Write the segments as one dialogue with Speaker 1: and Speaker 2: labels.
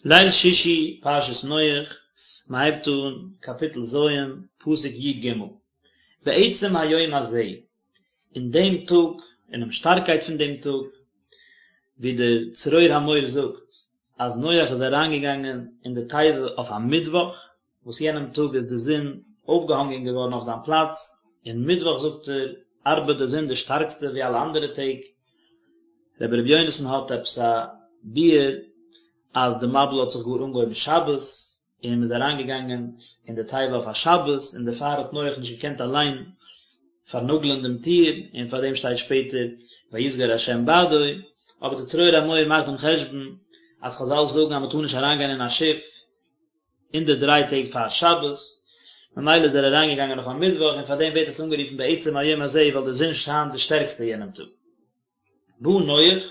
Speaker 1: ליל שישי פרשת נח, מען הייבט אן קאפיטל ז', פסוק י ג, בעצם היום הזה, אין דעם טאג, אינעם שטארקייט פון דעם טאג, ווי דער צרור המור זאגט אז נח איז אריינגעגאנגען אין די תיבה אויף א מיטוואך, וואס יענעם טאג איז די זון אויפגעהאנגען געווארן אויף זיין פלאץ, און מיטוואך זאגט ער ארבעט די זון די שטארקסטע ווי אלע אנדערע טעג. רבי ר' יונתן האט עפעס א ביאור אז די מבול האט זיך גאר אנגעהויבן שבת, און מען איז אריינגעגאנגען אין די תיבה אויף א שבת, און דערפאר האט נח נישט געקענט אליין פארנאגלען דעם טיר, און פאר דעם שטייט שפעטער ויסגר ה' בעדו, אבער די צרור המור מאכט דעם חשבון אז חזל זאגן אז מען טאר נישט אריינגיין אין א שיף אין די דריי טעג פאר שבת, ממילא איז ער אריינגעגאנגען אויף א מיטוואך און פאר דעם ווערט עס אנגערופן בעצם היום הזה ווייל די זון שיינט די שטערקסטע יענעם טאג. בא נח,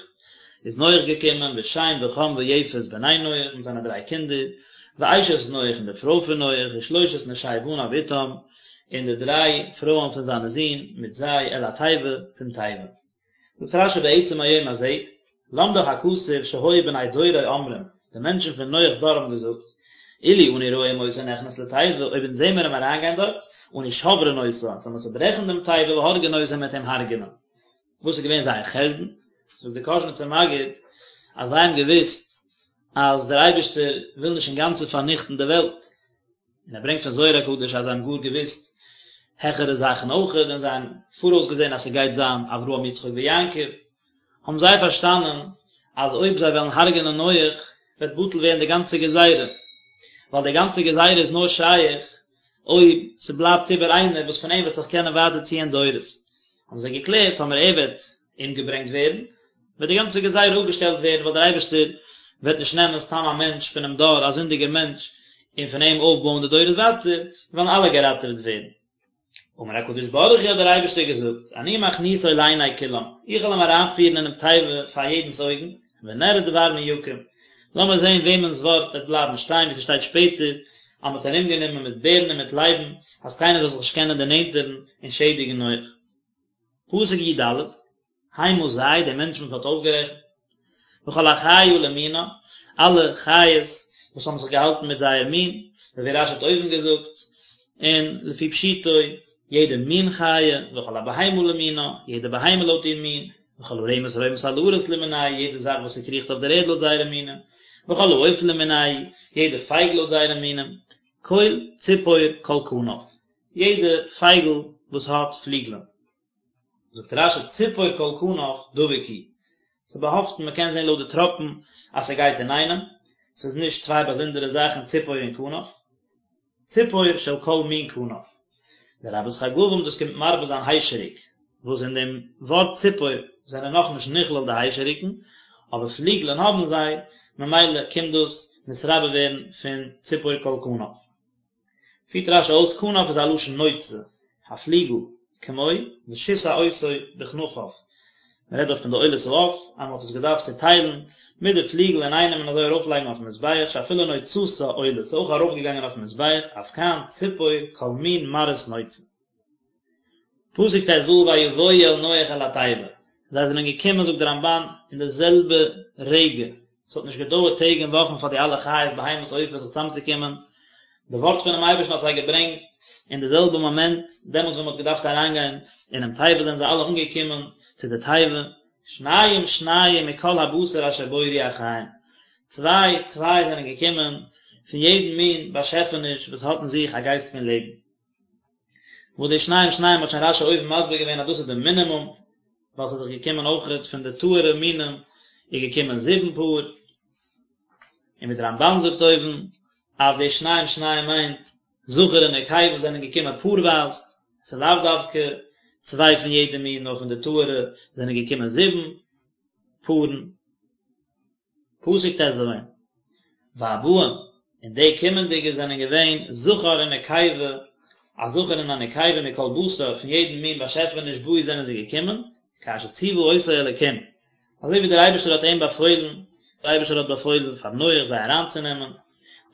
Speaker 1: איז נח געקומען, ושם וחם ויפת בני נח, מיט זיינע דריי קינדער, ואשת נח און די פרוי פון נח, ושלושת נשי בניו איתם, און די דריי פרויען פון זיינע זין מיט זיי, אל התיבה, צום תיבה. זאגט רשי בעצם היום הזה, למדך הכתוב שהיו בני דורו אומרים, די מענטשן פון נח'ס דור האבן געזאגט, אילו אנו רואים אותו נכנס לתיבה, אויב אונז זעמער אים אריינגיין דארט, אנו שוברין אותה, אונז וועלן צוברעכן דעם תיבה והורגין אותו מ'וועט אים הרג'נען. וואס איז געווען זייער חשבון? זאגט דער קאזשניצער מגיד, אז זיי האבן געוואוסט אז דער אייבערשטער וויל נישט אינגאנצן פארניכטן די וועלט, און ער ברענגט פון זוהר הקדוש אז זיי האבן גאר געוואוסט העכערע זאכן אויכעט, און זיי האבן פאראויס געזען אז ס'גייט זיין אברהם יצחק ויעקב, האבן זיי פארשטאנען אז אויב זיי וועלן הרג'נען נח וועט בטל ווערן די גאנצע גזירה, ווייל די גאנצע גזירה איז נאר שייך אויב ס'בלייבט איבער איינער וואס פון אים וועט זיך קענען ווייטער ציען דורות, האבן זיי געקלערט טאמער ער וועט אומגעברענגט ווערן, וועט די גאנצע גזירה אפגעשטעלט ווערן, ווייל דער אייבערשטער וועט נישט נעמען סתם א מענטש פונעם דור, א זינדיגער מענטש, און פון אים אויפבויען די דורות ווייטער, וועלן אלע געראטעוועט ווערן. אמר הקדוש ברוך הוא האט דער אייבערשטער געזאגט, אני מכניסו לעיני כולם, איך וועל אים אריינפירן אינעם תיבה פאר יעדנס אויגן, ונראה דבר מי יקום, לאמיר זען וועמענס ווארט וועט בלייבן שטיין, ווי ס'שטייט שפעטער, אז מ'האט ארומגענומען מיט בערן און מיט לייבן, אז קיינער זאל זיך נישט קענען דערנענטערן און שעדיגן נח. פסוק י ד, המה זיי, די מענטשן וואס מען האט אויפגערעכנט, וכל החיה למינה, אלע חיות וואס האבן זיך געהאלטן מיט זייער מין, ווי רשי האט אויבן געזאגט, און לפי פשוטו, יעדע מין חיה, וכל הבהמה למינה, יעדע בהמה לויט איר מין, וכל הרמש הרומש על הארץ למינהו, יעדע זאך וואס ס'קריכט אויף דער ערד לויט זייערע מינים, וכל העוף למינהו, יעדע פייגל לויט זייערע מינים, כל ציפור כל כנף, יעדע פייגל וואס האט פליגלען. זאגט רשי ציפור כל כנף דבוק הוא, ס'איז באהאפטן מען קען זען לויט די טראפן אז ס'גייט אינאיינעם, ס'איז נישט צוויי באזונדערע זאכן ציפור און כנף, ציפור של כל מין כנף. לרבות חגבים דאס קומט מרבה זיין היישעריק, וואס אין דעם ווארט ציפור זענען נאכנישט נכלל די היישעריקן, אבער פליגלען האבן זיי, ממילא קומט דאס נתרבה ווערן פון ציפור כל כנף. פירט רשי אויס כנף איז א לשון נוצה, א פליגל, כמו ושסע אותו בכנפיו, מען רעדט דארט פון די עולת העוף, אז מען האט עס געדארפט צוטיילן מיט די פליגל אינאיינעם און אזוי ארויפלייגן אויפן מזבח, שאפילו נוצתה עולה, ס'איז אויך ארויפגעגאנגען אויפן מזבח, אף כאן ציפור כל מין מראות נוצה. פסוק ט ו ויבואו אל נח אל התיבה, זיי זענען געקומען זאגט דער רמבן אין די זעלבע רגע, עס האט נישט געדויערט טעג און וואכן פאר די אלע חיות בהמות עופות זיך צוזאמצוקומען, די ווארט פונעם אייבערשטן האט זיי געברענגט אין די זעלבע מאמענט, דעמאלטס ווען מען האט געדארפט אריינגיין אינעם תיבה זענען זיי אלע אנגעקומען צו די תיבה, שניים שניים מכל הבשר אשר בו רוח חיים, צוויי צוויי זענען געקומען פון יעדן מין באשעפעניש וואס האט אין זיך א גייסט פון לעבן. וואס די שניים שניים האט שוין רשי אויבן מסביר געווען אז דאס איז די מינימום, ווייל ס'איז דאך געקומען אויכעט פון די טהור'ע מינים איז געקומען זיבן פאר, און ווי די רמבן זאגט אויבן אז די שניים שניים מיינט זכר און נקבה זענען געקומען פארווייז, ס'איז לאו דווקא צוויי פון יעדע מין נאר פון די טהור'ע זענען געקומען זיבן פארן. פסוק ט ז, והבאים, און די קומענדיגע זענען געווען זכר און נקבה, א זכר און א נקבה מכל בשר, פון יעדן מין באשעפעניש באו זענען זיי געקומען, כאשר ציוה אותו אלקים, אזוי ווי דער אייבערשטער האט אים באפוילן, דער אייבערשטער האט באפוילן פאר נח זיי אריינצונעמען,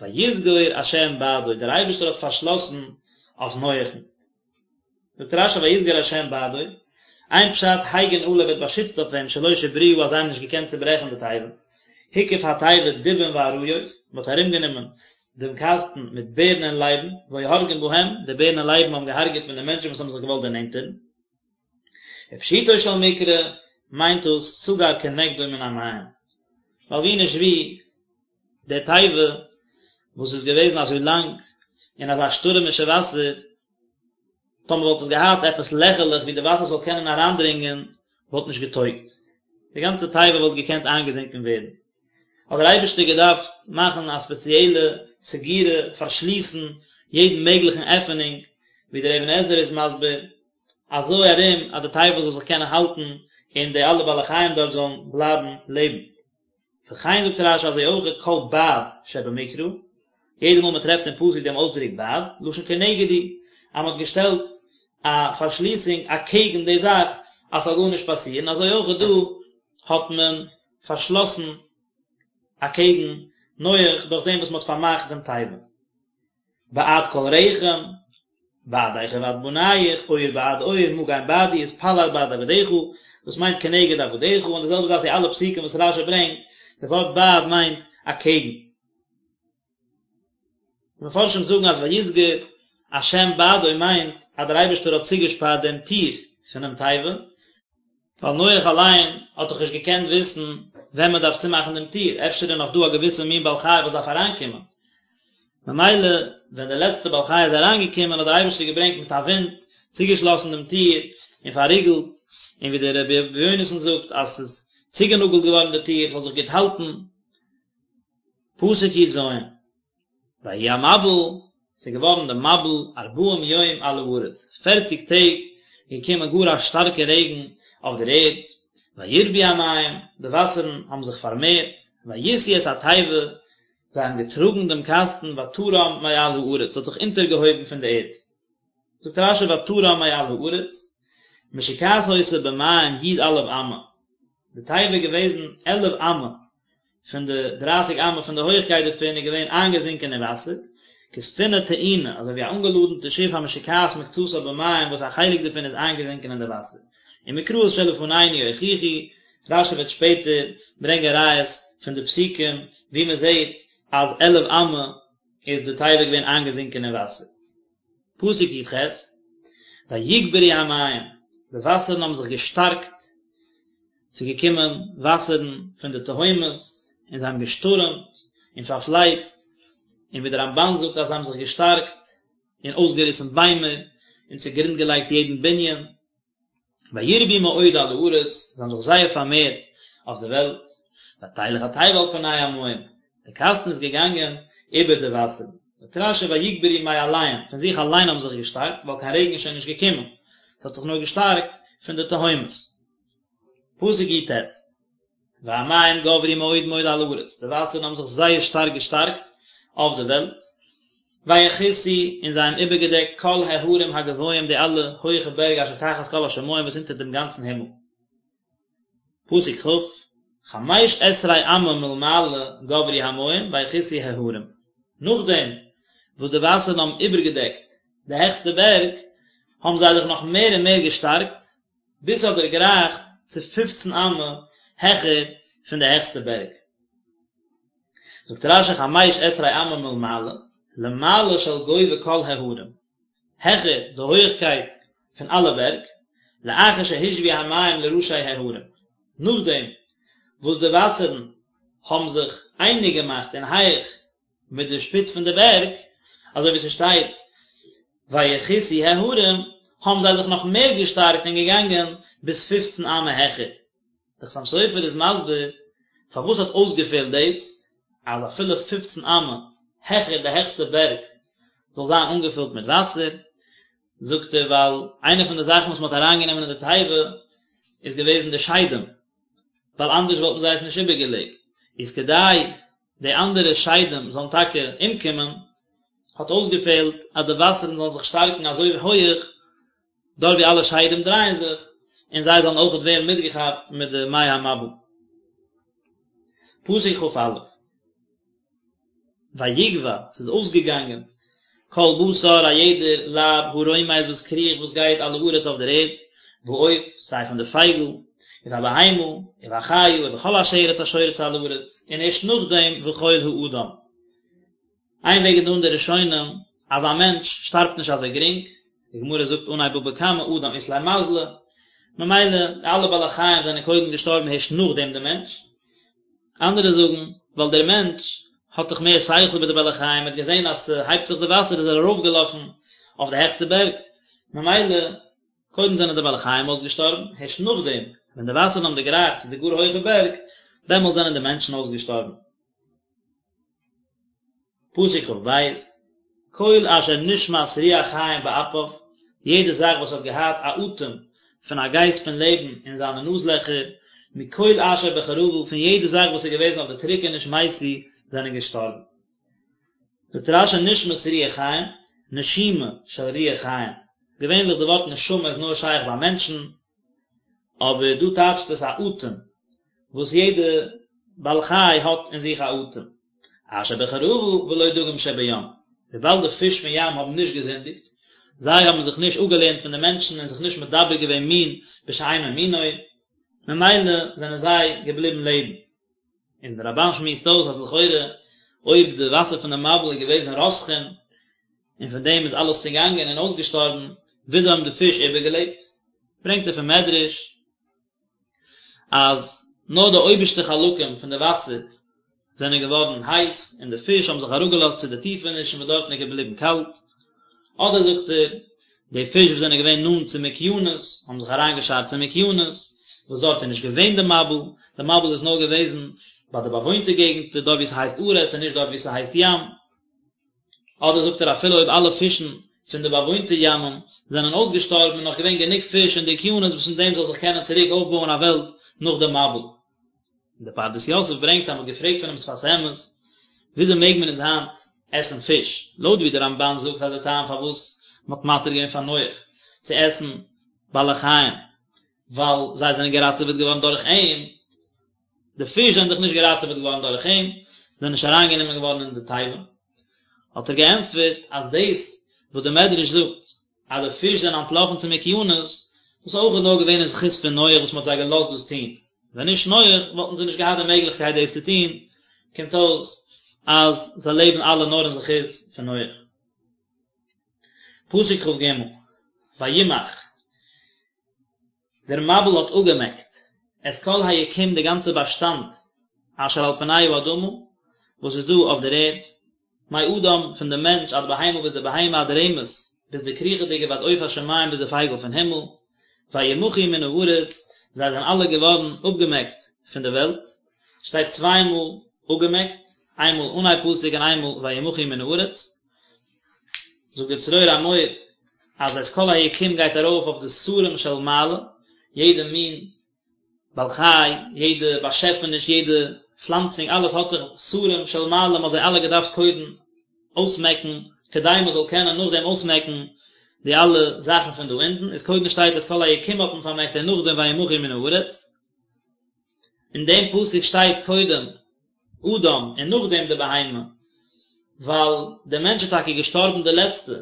Speaker 1: ויסגור ה' בעדו, דער אייבערשטער האט פארשלאסן אויף נח'ן. זאגט רשי ויסגר השם בעדו, איין פשט הגין עליו ער האט באשיצט אויף אים שלא שברוה אז זיי האבן נישט געקענט צוברעכן די תיבה. הקיף התיבה דובים ואריות, מען האט ארומגענומען דעם קאסטן מיט בערן און לייבן, והיו הורגין בהם, די בערן און לייבן האבן געהארגעט פון די מענטשן וואס האבן זיך געוואלט דערנענטערן. ופשוטו של מקרא מיינט דאס סגר כנגדו מן המים, ווייל ווי נישט ווי, די תיבה וואס איז געוועזן אזוי לאנג אין אזא שטורעמישע וואסער, טאמער וואלט עס געהאט עפעס לעכערלעך ווי די וואסער זאל קענען אריינדרינגען וואלט נישט געטויגט, די גאנצע תיבה וואלט געקענט איינגעזינקען ווערן. האט דער אייבערשטער געדארפט מאכן א ספעציעלע סגירה, פארשליסן יעדן מעגליכן עפענונג, ווי דער אבן עזרא איז מסביר, אזוי ארום אז די תיבה זאל זיך קענען האלטן און די אלע בעלי חיים דארט זאלן בלייבן לעבן. וכן זאגט רש"י אזוי אויך כל בעד שבמקרא, יעדע מאל מען טרעפט אין פסוק דעם אויסדרוק בעד, לשון כנגד הוא, אז מען האט געשטעלט א פארשליסונג אקעגן די זאך אז ס'זאל גארנישט פאסירן, אזוי אויך דא האט מען פארשלאסן אקעגן נח דורך דעם וואס מען האט פארמאכט דעם תיבה. בעד כל רחם, בעדך ובעד בניך, עור בעד עור, מגן בעדי, התפלל בעד עבדיך, דאס מיינט כנגד עבדיך, און די זעלבע זאך די אלע פסוקים וואס רש"י ברענגט, די ווארט בעד מיינט אקעגן. די מפרשים זאגן אז ויסגר השם בעדו מיינט אז דער אייבערשטער האט צוגעשפארט דעם טיר פונעם תיבה, ווייל נח אליין האט דאך נישט געקענט וויסן ווען מען דארף צומאכן דעם טיר, אפשר איז נאך דא א געוויסע מין בעל חי וואס דארף אריינקומען, ממילא ווען דער לעצטער בעל חי איז אריינגעקומען האט דער אייבערשטער געברענגט מיט א ווינט, צוגעשלאסן דעם טיר און פארריגלט, און ווי דער רבי יונתן זאגט אז ס'איז צוגענאגלט געווארן די טיר, ס'זאל זיך גוט האלטן. פסוק י"ז. ויהי המבול, ס'איז געווארן די מבול ארבעים יום על הארץ, פערציג טעג איז געקומען גאר א שטארקע רעגן אויף דער ערד, וירבו המים, די וואסערן האבן זיך פארמערט, וישאו את התיבה, זיי האבן געטראגן דעם קאסטן, ותרם מעל הארץ, ס'האט זיך אונטערגעהויבן פון די ערד. זאגט רש"י ותרם מעל הארץ, משוקעת היתה במים י"א אמה, די תיבה איז געוועזן עלף אמה פון די דרייסיג אמה פון די הויכקייט דערפון איז געווען איינגעזינקען אין וואסער, כספינה טעונה, אזוי ווי א אנגעלאדענטע שיף המשוקעת מקצתה במים וואס א חלק דערפון איז איינגעזינקען אין די וואסער. ומקראות שלפנינו יוכיחו, רש"י וועט שפעטער ברענגען ראיות פון די פסוקים וואו מען זעט אז עלף אמה איז די תיבה געווען איינגעזינקען אין וואסער. פסוק י"ח, ויגברו המים, די וואסערן האבן זיך געשטארקט, ס'איז געקומען וואסערן פון די תהומות, און זיי האבן געשטורעמט און פארפלייצט, און ווי דער רמב"ן זאגט אז זיי האבן זיך געשטארקט און אויסגעריסן ביימער, און צוגרונד געלייגט יעדן בנין. וירבו מאוד על הארץ, זיי האבן זיך זייער פארמערט אויף די וועלט, ותלך התיבה על פני המים, די קאסטן איז געגאנגען איבער די וואסערן. זאגט רש"י ויגברו מאליהם, פון זיך אליין האבן זיך געשטארקט, ווייל קיין רעגן איז שוין נישט געקומען, עס האט זיך נאר געשטארקט פון די תהומות. פסוק י"ט, והמים גברו מאוד מאוד על הארץ, די וואסערן האבן זיך זייער שטארק געשטארקט אויף די וועלט, ויכסו, און זיי האבן איבערגעדעקט כל ההרים הגבוהים די אלע הויכע בערג אשר תחת כל השמים וואס אונטער דעם גאנצן הימל. פסוק כ', חמש עשרה אמה מלמעלה גברו המים ויכסו ההרים, נאכדעם וואס די וואסערן האבן איבערגעדעקט די העכסטע בערג, האבן זיי זיך נאך מער און מער געשטארקט, ביז ס'האט דערגרייכט צו פופצן אמה העכער פון די העכסטע בערג. זאגט רש"י חמש עשרה אמה מלמעלה, למעלה של גובה כל ההרים, העכער די הויעכקייט פון אלע בערג, לאחר שהושוו המים לראשי ההרים, נאכדעם וואס די וואסערן האבן זיך אייניג געמאכט אין הייך מיט די שפיץ פון די בערג, אזוי ווי ס'שטייט ויכסו ההרים, האבן זיי זיך נאך מער געשטארקט און געגאנגען ביז פופצן אמה העכער. דער חתם סופר איז מסביר פארוואס האט אויסגעפעלט דאס אז אפילו פופצן אמה העכער די העכסטע בערג זאל זיין אנגעפילט מיט וואסער, זאגט ער ווייל איינע פון די זאכן וואס מען האט אריינגענומען אין די תיבה איז געוועזן די שדים, ווייל אנדערש וואלטן זיי עס נישט איבערגעלעבט, איז כדי די אנדערע שדים זאלן טאקע אומקומען, האט אויסגעפעלט אז די וואסערן זאלן זיך שטארקן אזוי הויעך, דארט ווי אלע שדים דרייען זיך, און זיי זאלן אויכעט ווערן מיטגעכאפט מיט די מי המבול. פסוק כ"א. ויגוע, ס'איז אויסגעגאנגען, כל בשר, א יעדער לייב, הרומש וואס קריכט, וואס גייט על הארץ אויף דער ערד, בעוף, סיי פון די פייגל, ובבהמה, ובחיה, ובכל השרץ השורץ על הארץ, און ערשט נאכדעם וכל האדם. איין וועג איז דא אין די ראשונים אז א מענטש שטארבט נישט אזוי גרינג, די גמרא זאגט אנהייב בבא קמא אדם אית ליה מזלא, ממילא די אלע בעלי חיים זענען קודם געשטארבן הערשט נאכדעם די מענטש, אנדערע זאגן ווייל דער מענטש האט דאך מער שכל איבער די בעלי חיים, ער האט געזען אז ס'הייבט זיך די וואסער איז ער ארויפגעלאפן אויף די העכסטע בערג, ממילא קודם זענען די בעלי חיים אויסגעשטארבן, הערשט נאכדעם ווען די וואסערן האבן דערגרייכט צו די גאר הויכע בערג, דעמאלט זענען די מענטשן אויסגעשטארבן. פסוק כ"ב, כל אשר נשמת רוח חיים באפיו, יעדע זאך וואס האט געהאט א אטעם פון א גייסט פון לעבן אין זיינע נאז-לעכער, מכל אשר בחרבה, פון יעדע זאך וואס איז געוועזן אויף די טרוקעניש מתו, זענען געשטארבן. זאגט רש"י נשמת רוח חיים, נשימה של רוח חיים, געווענליך די ווארט נשמה איז נאר שייך ביי מענטשן, אבער דא טייטשט עס א אטעם, וואס יעדע בעל חי האט אין זיך א אטעם. אשר בחרבה ולא דגים שבים, וויבאלד די פיש פון ים האבן נישט געזינדיגט, זיי האבן זיך נישט אפגעלערנט פון די מענטשן און זיך נישט מדבק געווען מין בשאינו מינו, ממילא זענען זיי געבליבן לעבן. און דער רמב"ן שמועסט אויס אז לכאורה אויב די וואסער פון די מבול איז געוועזן רותחין און פון דעם איז אלעס צעגאנגען און אויסגעשטארבן, וויאזוי האבן די פיש איבערגעלעבט? ברענגט ער פון מדרש אז נאר די אויבערשטע חלקים פון די וואסער זענען געווארן הייס און די פיש האבן זיך אראפגעלאזט צו די טיפענישן וואס דארטן איז געבליבן קאלט, אדער זאגט ער, די פיש וואס זענען געווען נאנט צום אוקיינוס האבן זיך אריינגעשארט צום אוקיינוס, וואס דארט איז נישט געווען די מבול, די מבול איז נאר געוועזן ביי די באוואוינטע געגנטער דארט וואו ס'הייסט ארץ און נישט דארט וואו ס'הייסט ים. אדער זאגט ער אפילו אויב אלע פישן פון די באוואוינטע ימים זענען אויסגעשטארבן איז נאך געווען גענוג פיש אין די אוקיינוס וואס פון דעם זאל זיך קענען צוריק אויפבויען א וועלט נאך די מבול. און דער פרדס יוסף ברענגט אז מען האט געפרעגט פונעם שפת אמת וויאזוי מעג מען אונז היינט עסן פיש, לויט ווי דער רמב"ן זאגט אז דער טעם פארוואס מען האט מתיר געווען פאר נח צו עסן בעלי חיים ווייל זיי זענען געראטעוועט געווארן דורך אים, די פיש זענען דאך נישט געראטעוועט געווארן דורך אים, זענען נישט אריינגענומען געווארן אין די תיבה. האט ער געענטפערט אז דאס וואס דער מדרש זאגט אז די פיש זענען אנטלאפן צום אוקיינוס, דאס איז אויך נאר געווען אין זכות פון נח וואס מען האט זיי געלאזט דאס טון, ווען נישט נח וואלטן זיי נישט געהאט די מעגליכקייט דאס צו טון, קומט אויס אז זיי לעבן אלע נאר אין זכות פון נח. פסוק כ"ג, וימח. דער מבול האט אפגעמעקט את כל היקום די גאנצע באשטאנד אשר על פני האדמה וואס איז דא אויף דער ערד, מאדם פון דעם מענטש עד בהמה ביז די בהמה עד רמש ביז די קריכעדיגע ועד עוף השמים ביז די פייגל פון הימל, וימחו מן הארץ זיי זענען אלע געווארן אפגעמעקט פון די וועלט, שטייט צוויי מאל אפגעמעקט, איינמאל אנהייב פסוק און איינמאל וימחו מן הארץ, זאגט דער צרור המור אז את כל היקום גייט ארויף אויף די שרים של מעלה, יעדע מין בעל חי, יעדע באשעפעניש, יעדע פלאנצונג, אלעס האט דאך שרים של מעלה, מען האט זיי אלע געדארפט קודם אויסמעקן, כדי מען זאל קענען נאכדעם אויסמעקן די אלע זאכן פון דא אונטן, איז קודם שטייט את כל היקום האט מען פארמעקט און נאכדעם וימחו מן הארץ. אין דעם פסוק שטייט קודם אדם און נאכדעם די בהמה, ווייל דער מענטש איז טאקע געשטארבן די לעצטע,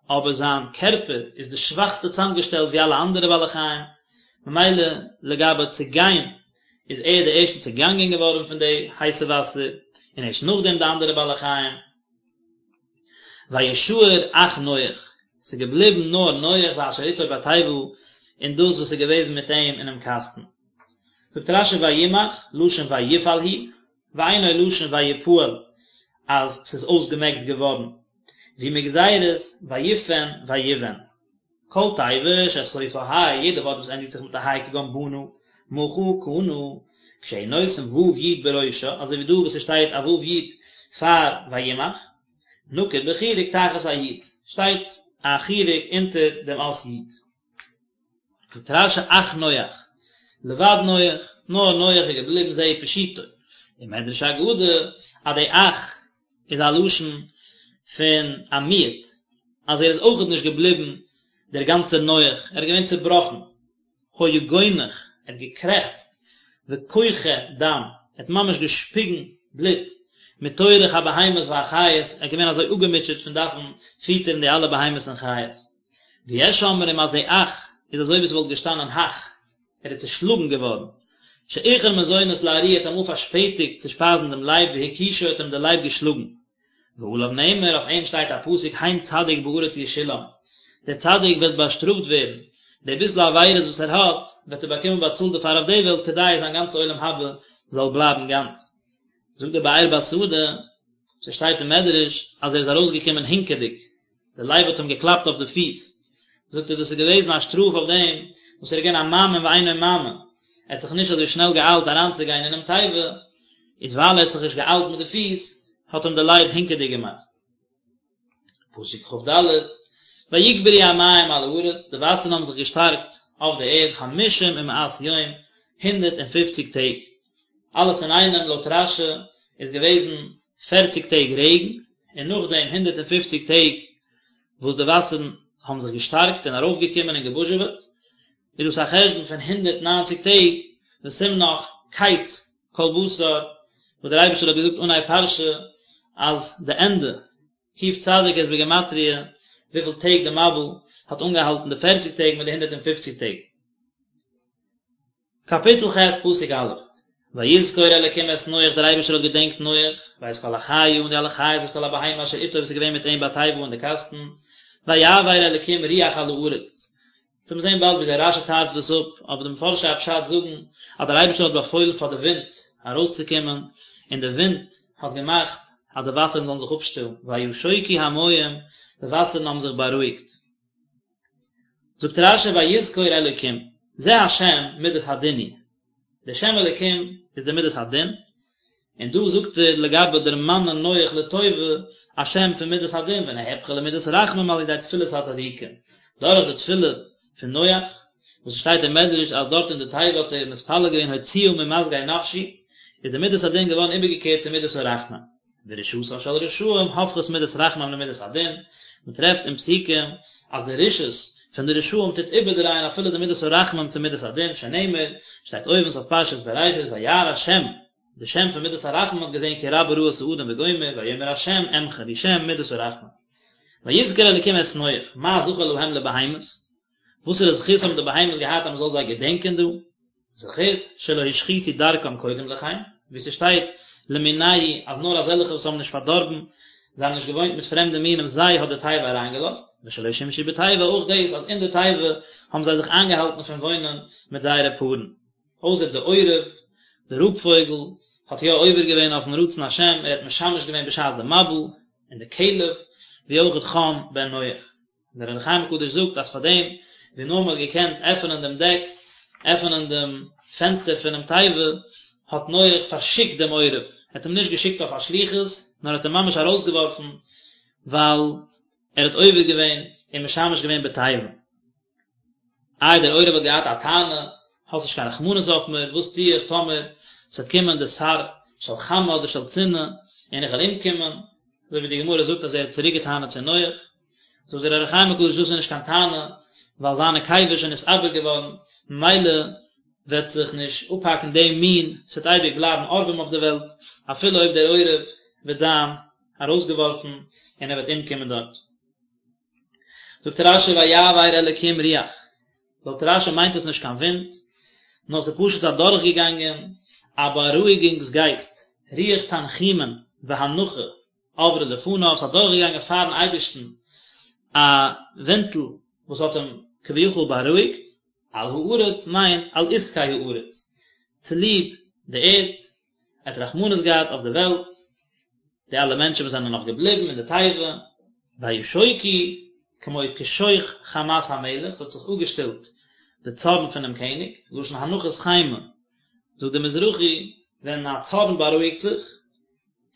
Speaker 1: אבער זיין קערפער איז די שוואכסטע צוזאמגעשטעלט ווי אלע אנדערע בעלי חיים, ממילא לגבי צעגיין איז ער די ערשטע צעגאנגען געווארן פון די הייסע וואסער, און ערשט נאכדעם די אנדערע בעלי חיים. וישאר אך נח, ס'איז געבליבן נאר נח ואשר איתו בתיבה, און דאס וואס איז געוועזן מיט אים אינעם קאסטן. זאגט רש"י וימח, לשון ויפעל הוא, ואינו לשון ויפעל, אז ס'איז אויסגעמעקט געווארן, והוא מגזירת ויפן ויבן. כל תיבה שסופה ה', יעדע ווארט וואס ענדיגט זיך מיט א ה' כגון בנה, מחה, קנה, כשהוא נותן ו' י' בראשה, אזוי ווי דא וואס עס שטייט א ו' י' פאר וימח, נקוד בחיריק תחת הי', שטייט א חיריק אונטער דעם אות י'. זאגט רש"י אך נח, לבד נח, נאר נח איז געבליבן זהו פשוטו, ומדרש אגדה אז די אך איז א לשון פון א מיעוט, אז ער איז אויכעט נישט געבליבן דער גאנצער נח, ער איז געווען צעבראכן, היה גונח, ער האט געקרעכצט, וכוחה דם, ער האט ממש געשפיגן בלוט, מטורח הבהמות והחיות, ער איז געווען אזוי אפגעמוטשעט פון דארפן פיטערן די אלע בהמות און חיות. ויש אומרים אז די אך איז אזוי ווי עס וואלט געשטאנען הך. ער איז צעשלאגן געווארן, שאיחר מזונות לארי האט אמאל פארשפעטיגט צו שפייזן דעם לייב והכישו האט אים דער לייב געשלאגן. ועליו נאמר, אויף אים שטייט א פסוק הן צדיק בארץ ישולם, דער צדיק וועט באשטראפט ווערן, די ביסל עבירות וואס ער האט, וועט ער באקומען באצאלט דערפאר אויף די וועלט כדי זיין גאנצע עולם הבא זאל בלייבן גאנץ. זאגט דער באר בשדה, ס'שטייט אין מדרש אז ער איז ארויסגעקומען הינקעדיג, דער לייב האט אים געקלאפט אויף די פיס, זאגט ער דאס איז געוועזן א שטראף אויף דעם וואס ער איז געווען א מאמין ואינו מאמין, ער האט זיך נישט אזוי שנעל געאיילט אריינצוגיין אינעם תיבה, איז ווייל ער האט זיך נישט געאיילט מיט די פיס, האט אים דער לייב הינקעדיג געמאכט. פסוק כ"ד, ויגברו המים על הארץ, די וואסערן האבן זיך געשטארקט אויף די ערד חמשים ומאת יום, הונדערט און פופציג טעג, אלעס אינאיינעם לויט רש"י איז געוועזן פערציג טעג רעגן, און נאכדעם הונדערט און פופציג טעג וואס די וואסערן האבן זיך געשטארקט און ארויפגעקומען און געבוזשעוועט, איז דאס א חשבון פון הונדערט ניינציג טעג, וסימנך קץ כל בשר, וואס דער אייבערשטער האט געזאגט אנהייב פרשה אז די ענדע, קוף צדיק איז בגימטריא וויפיל טעג די מבול האט אנגעהאלטן די פערציג טעג מיט די הונדערט און פופציג טעג. קאפיטל ח' פסוק א', ויזכור אלקים את נח דער אייבערשטער האט געדענקט נח, ואת כל החיה און די אלע חיות ואת כל הבהמה אשר איתו וואס איז געווען מיט אים בתיבה אין די קאסטן, ויעבר אלקים רוח על הארץ. אונז וועלן זען באלד ווי דער רש"י טייטשט דאס אפ, אבער די מפרשי הפשט זאגן אז דער אייבערשטער האט באפוילן פאר די ווינט ארויסצוקומען, און די ווינט האט געמאכט אז די וואסערן זאלן זיך אפשטילן, וישכו המים, די וואסערן האבן זיך בארואיגט. זאגט רש"י ויזכור אלוקים, זה השם מידת הדין הוא, דער שם אלוקים איז די מידת הדין, און דא זאגט ער לגבי דערמאנען נח לטובה א שם פון מידת הדין ונהפכה למידת רחמים על ידי תפילת הצדיקים, דורך די תפילה פון נח, וואס עס שטייט אין מדרש אז דארט אין די תיבה האט ער מתפלל געווען הוציאה ממסגר נפשי, איז די מידת הדין געווארן איבערגעקערט צו מידת הרחמים. ורשעתן של רשעים הופכת מידת רחמים למידת הדין, מען טרעפט אין פסוקים אז די רשעות פון די רשעים טוט איבערדרייען אפילו די מידת הרחמים צו מידת הדין, שנאמר, שטייט אויבן סוף פרשת בראשית וירא השם, די שם פון מידת הרחמים האט געזען כי רבה רעת האדם וגומר, ויאמר השם אמחה, והוא שם מידת הרחמים. ויזכר אלקים את נח, מה זכר להם לבהמות? וואסערע זכות האבן די בהמות געהאט אז מען זאל זיי געדענקען דא? זכות שלא השחיתו דרכם קודם לכן, ווי ס'שטייט למינהו אז נאר אזעלכע וואס האבן נישט פארדארבן, זיי האבן נישט געוואוינט מיט פרעמדע מינים זיי האט די תיבה אריינגעלאזט, ושלא שימשו בתיבה אויך דאס אז אין די תיבה האבן זיי זיך איינגעהאלטן פון וואוינען מיט זייערע פארן. אויסער די עורב, די רויב פויגל, האט יא עובר געווען אויפן רצון השם, ער האט משמש געווען בשעת די מבול, און די כלב, ווי אויך חם בן נח. דער אור החיים הקדוש זאגט אז פאר דעם ווי נאר מען האט געקענט עפענען דעם דעק, עפענען דעם פענסטער פונעם תיבה, האט נח פארשיקט דעם עורב, ער האט אים נישט געשיקט אויף א שליחות, נאר ער האט אים ממש ארויסגעווארפן, ווייל ער האט עובר געווען און משמש געווען בתיבה. איי דער עורב האט געהאט א טענה, האסט נישט קיין רחמנות אויף מיר, וואס טו איך טאמער ס'וועט קומען די שר של חמה אדער של צינה און איך וועל אומקומען, אזוי ווי די גמרא זאגט אז ער האט צוריק געטענה'ט צו נח, זאגט דער אור החיים הקדוש דאס איז נישט קיין טענה, ווייל זיין נקבה איז שוין נתעבר געווארן, ממילא וועט זיך נישט אפהאקן דעם מין, ס'וועט אייביג בלייבן עורבים אויף די וועלט, אפילו אויב דער עורב וועט זיין ארויסגעווארפן און ער וועט אומקומען דארט. זאגט רש"י ויעבר אלקים רוח, לויט רש"י מיינט עס נישט קיין ווינט, נאר ס'איז פשוט אדורכגעגאנגען א בארואיגונגס גייסט, רוח תנחומין והנחה עברה לפניו, ס'איז אדורכגעגאנגען פארן אייבערשטן א ווינטל וואס האט אים כביכול בארואיגט, על הארץ מיינט על עסקי הארץ, צוליב די ערד, ער האט רחמנות געהאט אויף די וועלט, די אלע מענטשן וואס זענען נאך געבליבן אין די תיבה, וישכו כמו כשוך חמת המלך, ס'האט זיך אפגעשטילט די צארן פונעם קעניג, לשון הנחת חימה, זאגט דער מזרחי, ווען א צארן בארואיגט זיך,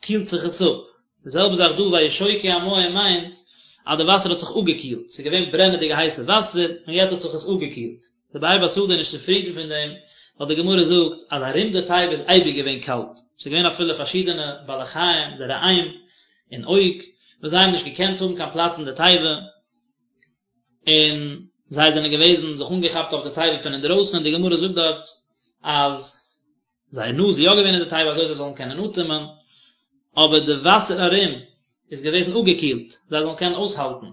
Speaker 1: קילט זיך עס אפ. די זעלבע זאך דא וישכו המים מיינט אז די וואסער האט זיך אפגעקילט, ס'איז געווען ברענעדיגע הייסע וואסער און יעצט האט זיך עס אפגעקילט. דער באר בשדה איז נישט צופרידן פון דעם, ווייל די גמרא זאגט אז ארום די תיבה איז אייביג געווען קאלט, ס'איז געווען אפילו פארשידענע בעלי חיים, די ראם און עוג, וואס זיי האבן נישט געקענט האבן קיין פלאץ אין די תיבה, און זיי זענען געוועזן זיך אנגעכאפט אויף די תיבה פון אינדרויסן, און די גמרא זאגט דארט אז זייער נאז איז יא געווען אין די תיבה אזוי זיי זאלן קענען אטעמען, אבער די וואסער ארום איז געוועזן אפגעקילט, זיי זאלן קענען אויסהאלטן.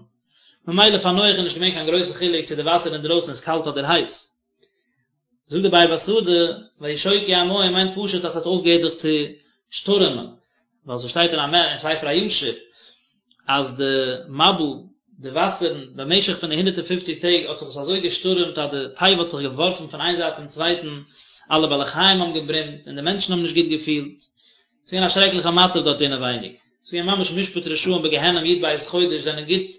Speaker 1: ממילא פאר נח איז נישט געווען קיין גרויסע חילוק צו די וואסער אינדרויסן איז קאלט אדער הייס. זאגט די באר בשדה, וישכו המים מיינט פשוט אז ס'האט אויפגעהערט זיך צו שטורעמען, ווייל ס'שטייט אין א ספר הישר אז די מבול, די וואסערן, במשך פון די הונדערט און פופציג טעג האט זיך עס אזוי געשטורעמט אז די תיבה האט זיך געווארפן פון איין זייט צום צווייטן, אלע בעלי חיים האבן געברומט און די מענטשן האבן נישט גוט געפילט. ס'איז געווען א שרעקליכע מצב דארט אינעווייניג. ס'איז געווען ממש משפט רשעים בגיהנום י"ב חודש זענען גוט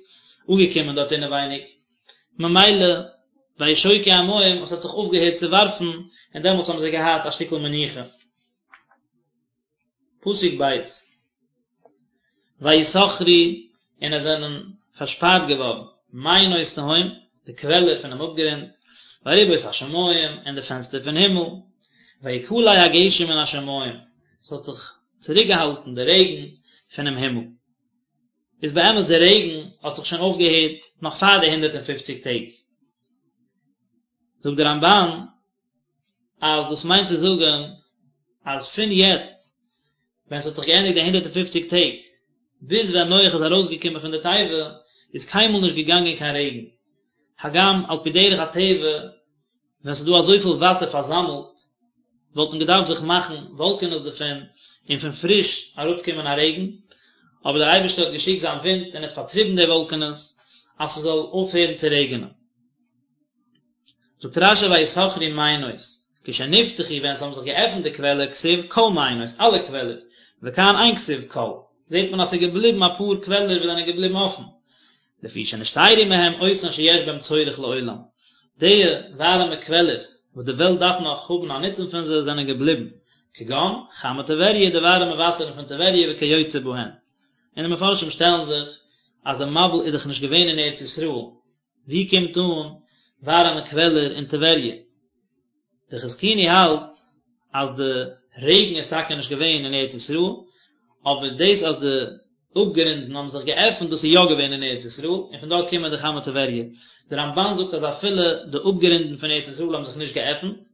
Speaker 1: אפגעקומען דארט אינעווייניג. ממילא וישכו המים, עס האט זיך אויפגעהערט צו ווארפן, און דעמאלטס האבן זיי געהאט א שטיקל מנוחה. פסוק ב', ויסכרו, און עס זענען פארשפארט געווארן מעיינות תהום, די קוועלער פונעם אפגרונט, וארובות השמים, און די פענסטער פון הימל, ויכלא הגשם מן השמים, עס האט זיך צוריקגעהאלטן די רעגן פונעם הימל. איז באמת די רעגן האט זיך שוין אויפגעהערט נאך פאר די הונדערט און פופציג טעג. זאגט די רמב"ן אז דאס מיינט צו זאגן אז פון יעצט ווען ס'האט זיך געענדיגט די הונדערט און פופציג טעג ביז ווען נח איז ארויסגעקומען פון די תיבה איז קיינמאל נישט געגאנגען קיין רעגן, הגם על פי דרך הטבע ווען ס'איז דא אזויפיל וואסער פארזאמלט, וואלט מען געדארפט זיך מאכן וואלקענעס דערפון און פון פריש אראפקומען א רעגן, אבער דער אייבערשטער האט געשיקט זיין ווינט און האט פארטריבן די וואלקענעס אז ס'זאל אויפהערן צו רעגענען. זאגט רש"י ויסכרו מעיינות, כשנפתחו ווען ס'האבן זיך געעפנט די קוועלער כתיב כל מעיינות, אלע קוועלער, וכאן אין כתיב כל, זעט מען אז ס'איז געבליבן אפאר קוועלער וואס זענען געבליבן אפן, לפי שנשתיירו מהם אותן שיש בהם צורך לעולם, די ווארעמע קוועלער וואס די וועלט דארף נאך האבן א נוצן פון זיי זענען געבליבן, כגון חמי טבריה די ווארעמע וואסערן פון טבריה וכיוצא בהן. און די מפרשים שטעלן זיך אז די מבול איז דאך נישט געווען אין ארץ ישראל, ווי קומט אן ווארעמע קוועלער אין טבריה? די חזקוני האלט אז די רעגן איז טאקע נישט געווען אין ארץ ישראל, אבער דאס אז די אפגרונדן האבן זיך געעפנט דאס איז יא געווען אין ארץ ישראל, און פון דארט קומען די חמי טבריה. די רמב"ן זאגט אז אפילו די אפגרונדן פון ארץ ישראל האבן זיך נישט געעפנט,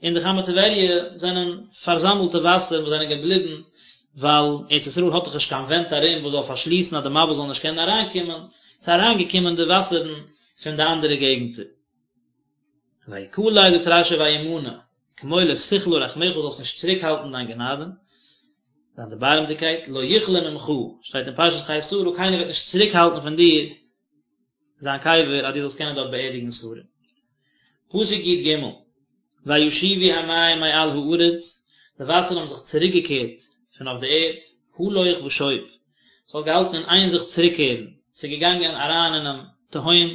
Speaker 1: און די חמי טבריה זענען פארזאמלטע וואסער וואס זענען געבליבן ווייל ארץ ישראל האט דאך נישט קיין ווענט ארום וואס זאל פארשליסן אז די מבול זאל נישט קענען אריינקומען, ס'איז אריינגעקומען די וואסערן פון די אנדערע געגנטער. ויכלא זאגט רש"י וימנע, כמו לא תכלה רחמיך זאלסט נישט צוריק האלטן דיין גענאדע, דיין דערבארעמדיגקייט, לא יכלה ממך, שטייט אין פרשת חיי שרה, קיינער וועט נישט צוריק האלטן פון דיר זיין קבר אז דו זאלסט קענען דארט באערדיגן שרה. פסוק י"ג, וישובו המים מעל הארץ, די וואסערן האבן זיך צוריק געקערט פון אויף די ערד, הלוך ושוב, ס'האט געהאלטן אין איין זיך צוריקקערן, ס'איז געגאנגען אריין אינעם תהום,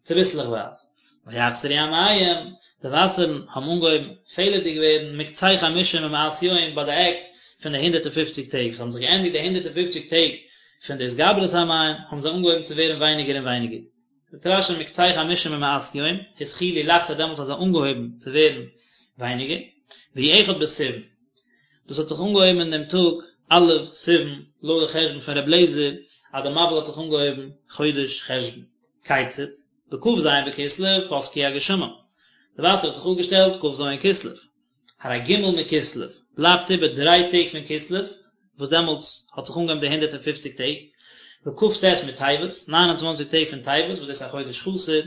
Speaker 1: צוביסלעכווייז, ויחסרו המים, די וואסערן האבן אנגעהויבן פעלערדיג ווערן, מקצה חמשים ומאת יום, ביי די עק פון די הונדערט און פופציג טעג, ס'האבן זיך געענדיגט די הונדערט און פופציג טעג פון די התגברות המים, האבן זיי אנגעהויבן צו ווערן ווייניגער און ווייניגער. זאגט רש"י מקצה חמשים ומאת יום, התחילו לחסור דעמאלטס האט זיי אנגעהויבן צו ווערן ווייניגער, והוא אחד בסיוון. דאס האט זיך אנגעהויבן אין דעם טאג א' סיוון, לויט די חשבון פון ר' אליעזר אז די מבול האט זיך אנגעהויבן חודש חשוון. כיצד? בכ"ז בכסלו פסקו הגשמים. די וואסער האט זיך אפגעשטעלט כ"ז כסלו. הרי ג' מכסלו, בלייבט איבער דריי טעג פון כסלו, וואס דעמאלטס האט זיך אנגעהויבן די הונדערט און פופציג טעג, וכ"ט מטבת, ניין און צוואנציג טעג פון טבת, וואס דאס איז א חודש חסר,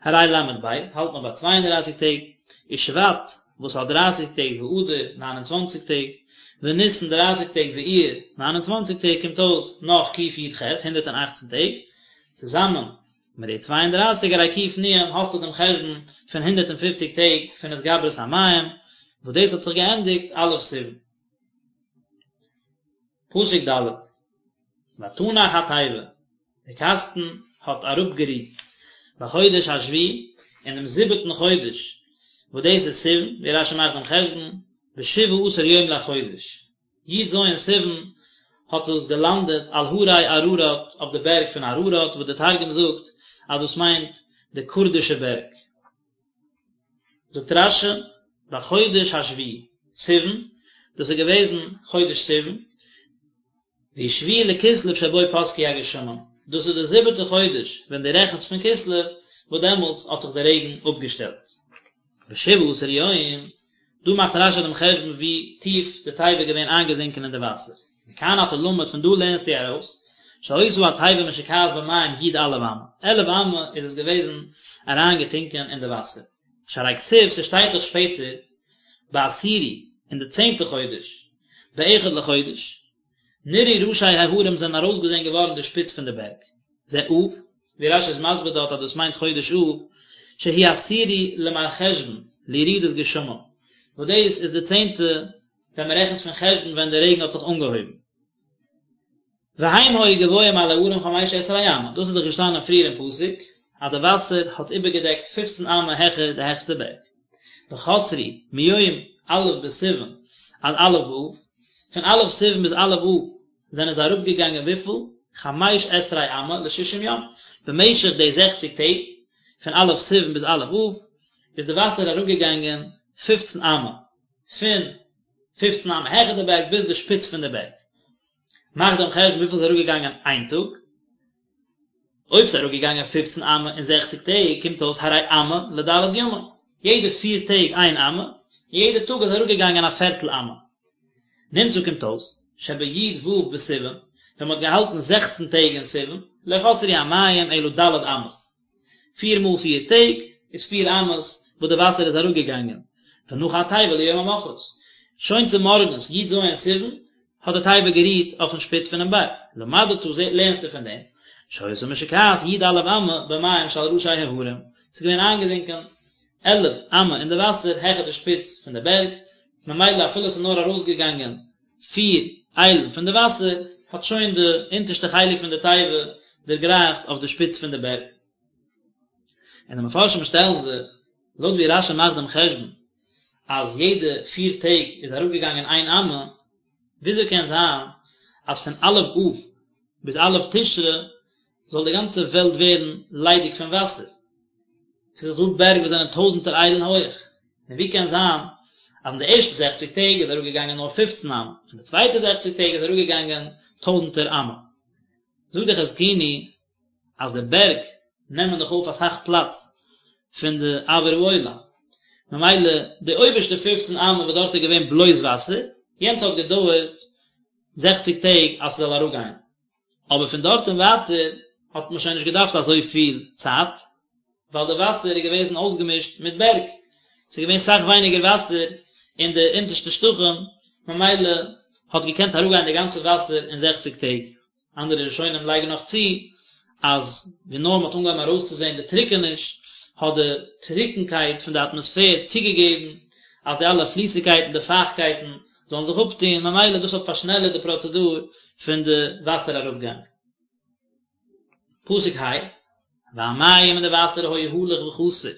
Speaker 1: הרי ל"ב, האלט מען ביי צוויי און דרייסיג טעג, ושבט, וואס האט דרייסיג טעג, ואדר, ניין און צוואנציג טעג, וניסן, דרייסיג טעג, ואייר, ניין און צוואנציג טעג, קומט אויס נאך קי"ח, הונדערט און אכצן טעג, צוזאמען מיט די 32 הרי ק"נ האסטו דעם חשבון פון 150 טעג פון התגברות המים, וואס דאס האט זיך געענדיגט א' סיוון. פסוק ד' ותנח התיבה, די קאסטן האט אראפגערוהט בחודש השביעי, אין דעם זיבעטן חודש, וואס דאס איז סיוון, ווי רש"י מאכט דעם חשבון, בשבעה עשר יום לחודש, י"ז סיוון האט עס געלאנדעט על הרי אררט אויף די בערג פון אררט וואס די תרגום זאגט אז דאס מיינט די קורדישע בערג. זאגט רש"י בחודש השביעי סיוון, דאס איז געוועזן חודש סיוון, והוא שביעי לכסלו שבו פסקו הגשמים, דאס איז די זיבעטע חודש ווען דו רעכנסט פון כסלו וואס דעמאלטס האט זיך די רעגן אפגעשטעלט. בשבעה עשר יום דא מאכט רש"י דעם חשבון ווי טיף די תיבה איז געווען איינגעזינקען אין די וואסער. מכאן אתה למד פון דא לערנסטו ארויס, שהיתה התיבה משוקעת במים י"א אמה, עלף אמה איז עס געוועזן אריינגעטונקען אין די וואסער. שהרי כתיב, ס'שטייט דאך שפעטער בעשירי אין די צענטע חודש, באחד לחודש, נראו ראשי ההרים זענען ארויסגעזען געווארן די שפיץ פון די בערג, זה אב, ווי רש"י איז מסביר דארט אז דאס מיינט חודש אב, שהוא עשירי למרחשוון, לירידת גשמים, וואס דאס איז די צענטע ווען מען רעכנט פון חשוון ווען די רעגן האט זיך אנגעהויבן. והם היו גבוהים על ההרים חמש עשרה אמה, דאס איז דאך געשטאנען פריער אין פסוק אז די וואסער האט איבערגעדעקט פופצן אמה העכער די העכסטע בערג. וחסרו מיום א' בסיוון עד א' באב, פון א' סיוון ביז א' אב זענען זיי אראפגעגאנגען וויפיל? חמש עשרה אמה לשישים יום, במשך די זעכציג טעג, פון א' סיוון ביז א' אב, איז די וואסער אראפגעגאנגען פופצן אמה, פון פופצן אמה העכער די בערג ביז די שפיץ פון די בערג. מאך דעם חשבון וויפיל איז אראפגעגאנגען איין טאג, אויב ס'איז אראפגעגאנגען פופצן אמה אין זעכציג טעג קומט אויס הרי אמה לד' ימים, יעדע פיר טעג איין אמה, און יעדע טאג איז אראפגעגאנגען א פערטל אמה. נמצא קומט אויס, שבי"ו בסיוון, ווען מ'האט געהאלטן זעכצן טעג אין סיוון, לא חסרו המים אלא ד' אמות. פיר מאל פיר טעג איז פיר אמות וואס די וואסער איז אראפגעגאנגען, ונחה התיבה ליום המחרת, שוין צומארגנס י"ז סיוון האט די תיבה גערוהט אויפן שפיץ פונעם בארג, למדת לערנסטו פון דעם, שהיתה משוקעת י"א אמה במים שעל ראשי ההרים, ס'איז געווען איינגעזינקען עלף אמה אין די וואסער העכער די שפיץ פון די בערג, ממילא אפילו ס'איז נאר ארויסגעגאנגען פיר איילן פון די וואסער, האט שוין די אונטערשטע חלק פון די תיבה דערגרייכט אויף די שפיץ פון די בערג. און די מפרשים שטעלן זיך, לויט ווי רש"י מאכט דעם חשבון אז יעדע פיר טעג איז אראפגעגאנגען איין אמה, וויאזוי קען זיין אז פון א' אב ביז א' תשרי זאל די גאנצע וועלט ווערן ליידיג פון וואסער? ס'איז דאך דא בערג וואס זענען טויזנטער איילן הויעך, און ווי קען זיין אז אין די ערשטע זעכציג טעג איז אראפגעגאנגען נאר פופצן אמה, און די צווייטע זעכציג טעג איז אראפגעגאנגען טויזנטער אמה? זאגט דער חזקוני אז די בערג נעמען דאך אויף אסאך פלאץ פון די אויר העולם, ממילא די אויבערשטע פופצן אמה וואס דארט איז געווען בלויז וואסער, יענץ האט געדויערט זעכציג טעג אז ס'זאל אראפגיין, אבער פון דארט און ווייטער האט מען שוין נישט געדארפט אזויפיל צייט, ווייל די וואסער איז געוועזן אויסגעמישט מיט בערג, ס'איז געווען סאך ווייניגער וואסער אין די אונטערשטע שטחים, ממילא האט געקענט אראפגיין די גאנצע וואסער אין זעכציג טעג. אנדערע ראשונים לייגן נאך צו, אז ווי נאר מ'האט אנגעהויבן ארויסצוזען די טרוקעניש, האט די טרוקנקייט פון די אטמאספער צוגעגעבן אז די אלע פליסיגקייטן, די פייכקייטן, זאלן זיך אפטון, ממילא דאס האט פארשנעלערט די פראצעדור פון די וואסער אראפגאנג. פסוק ה', והמים און די וואסער היו הלוך וחסר,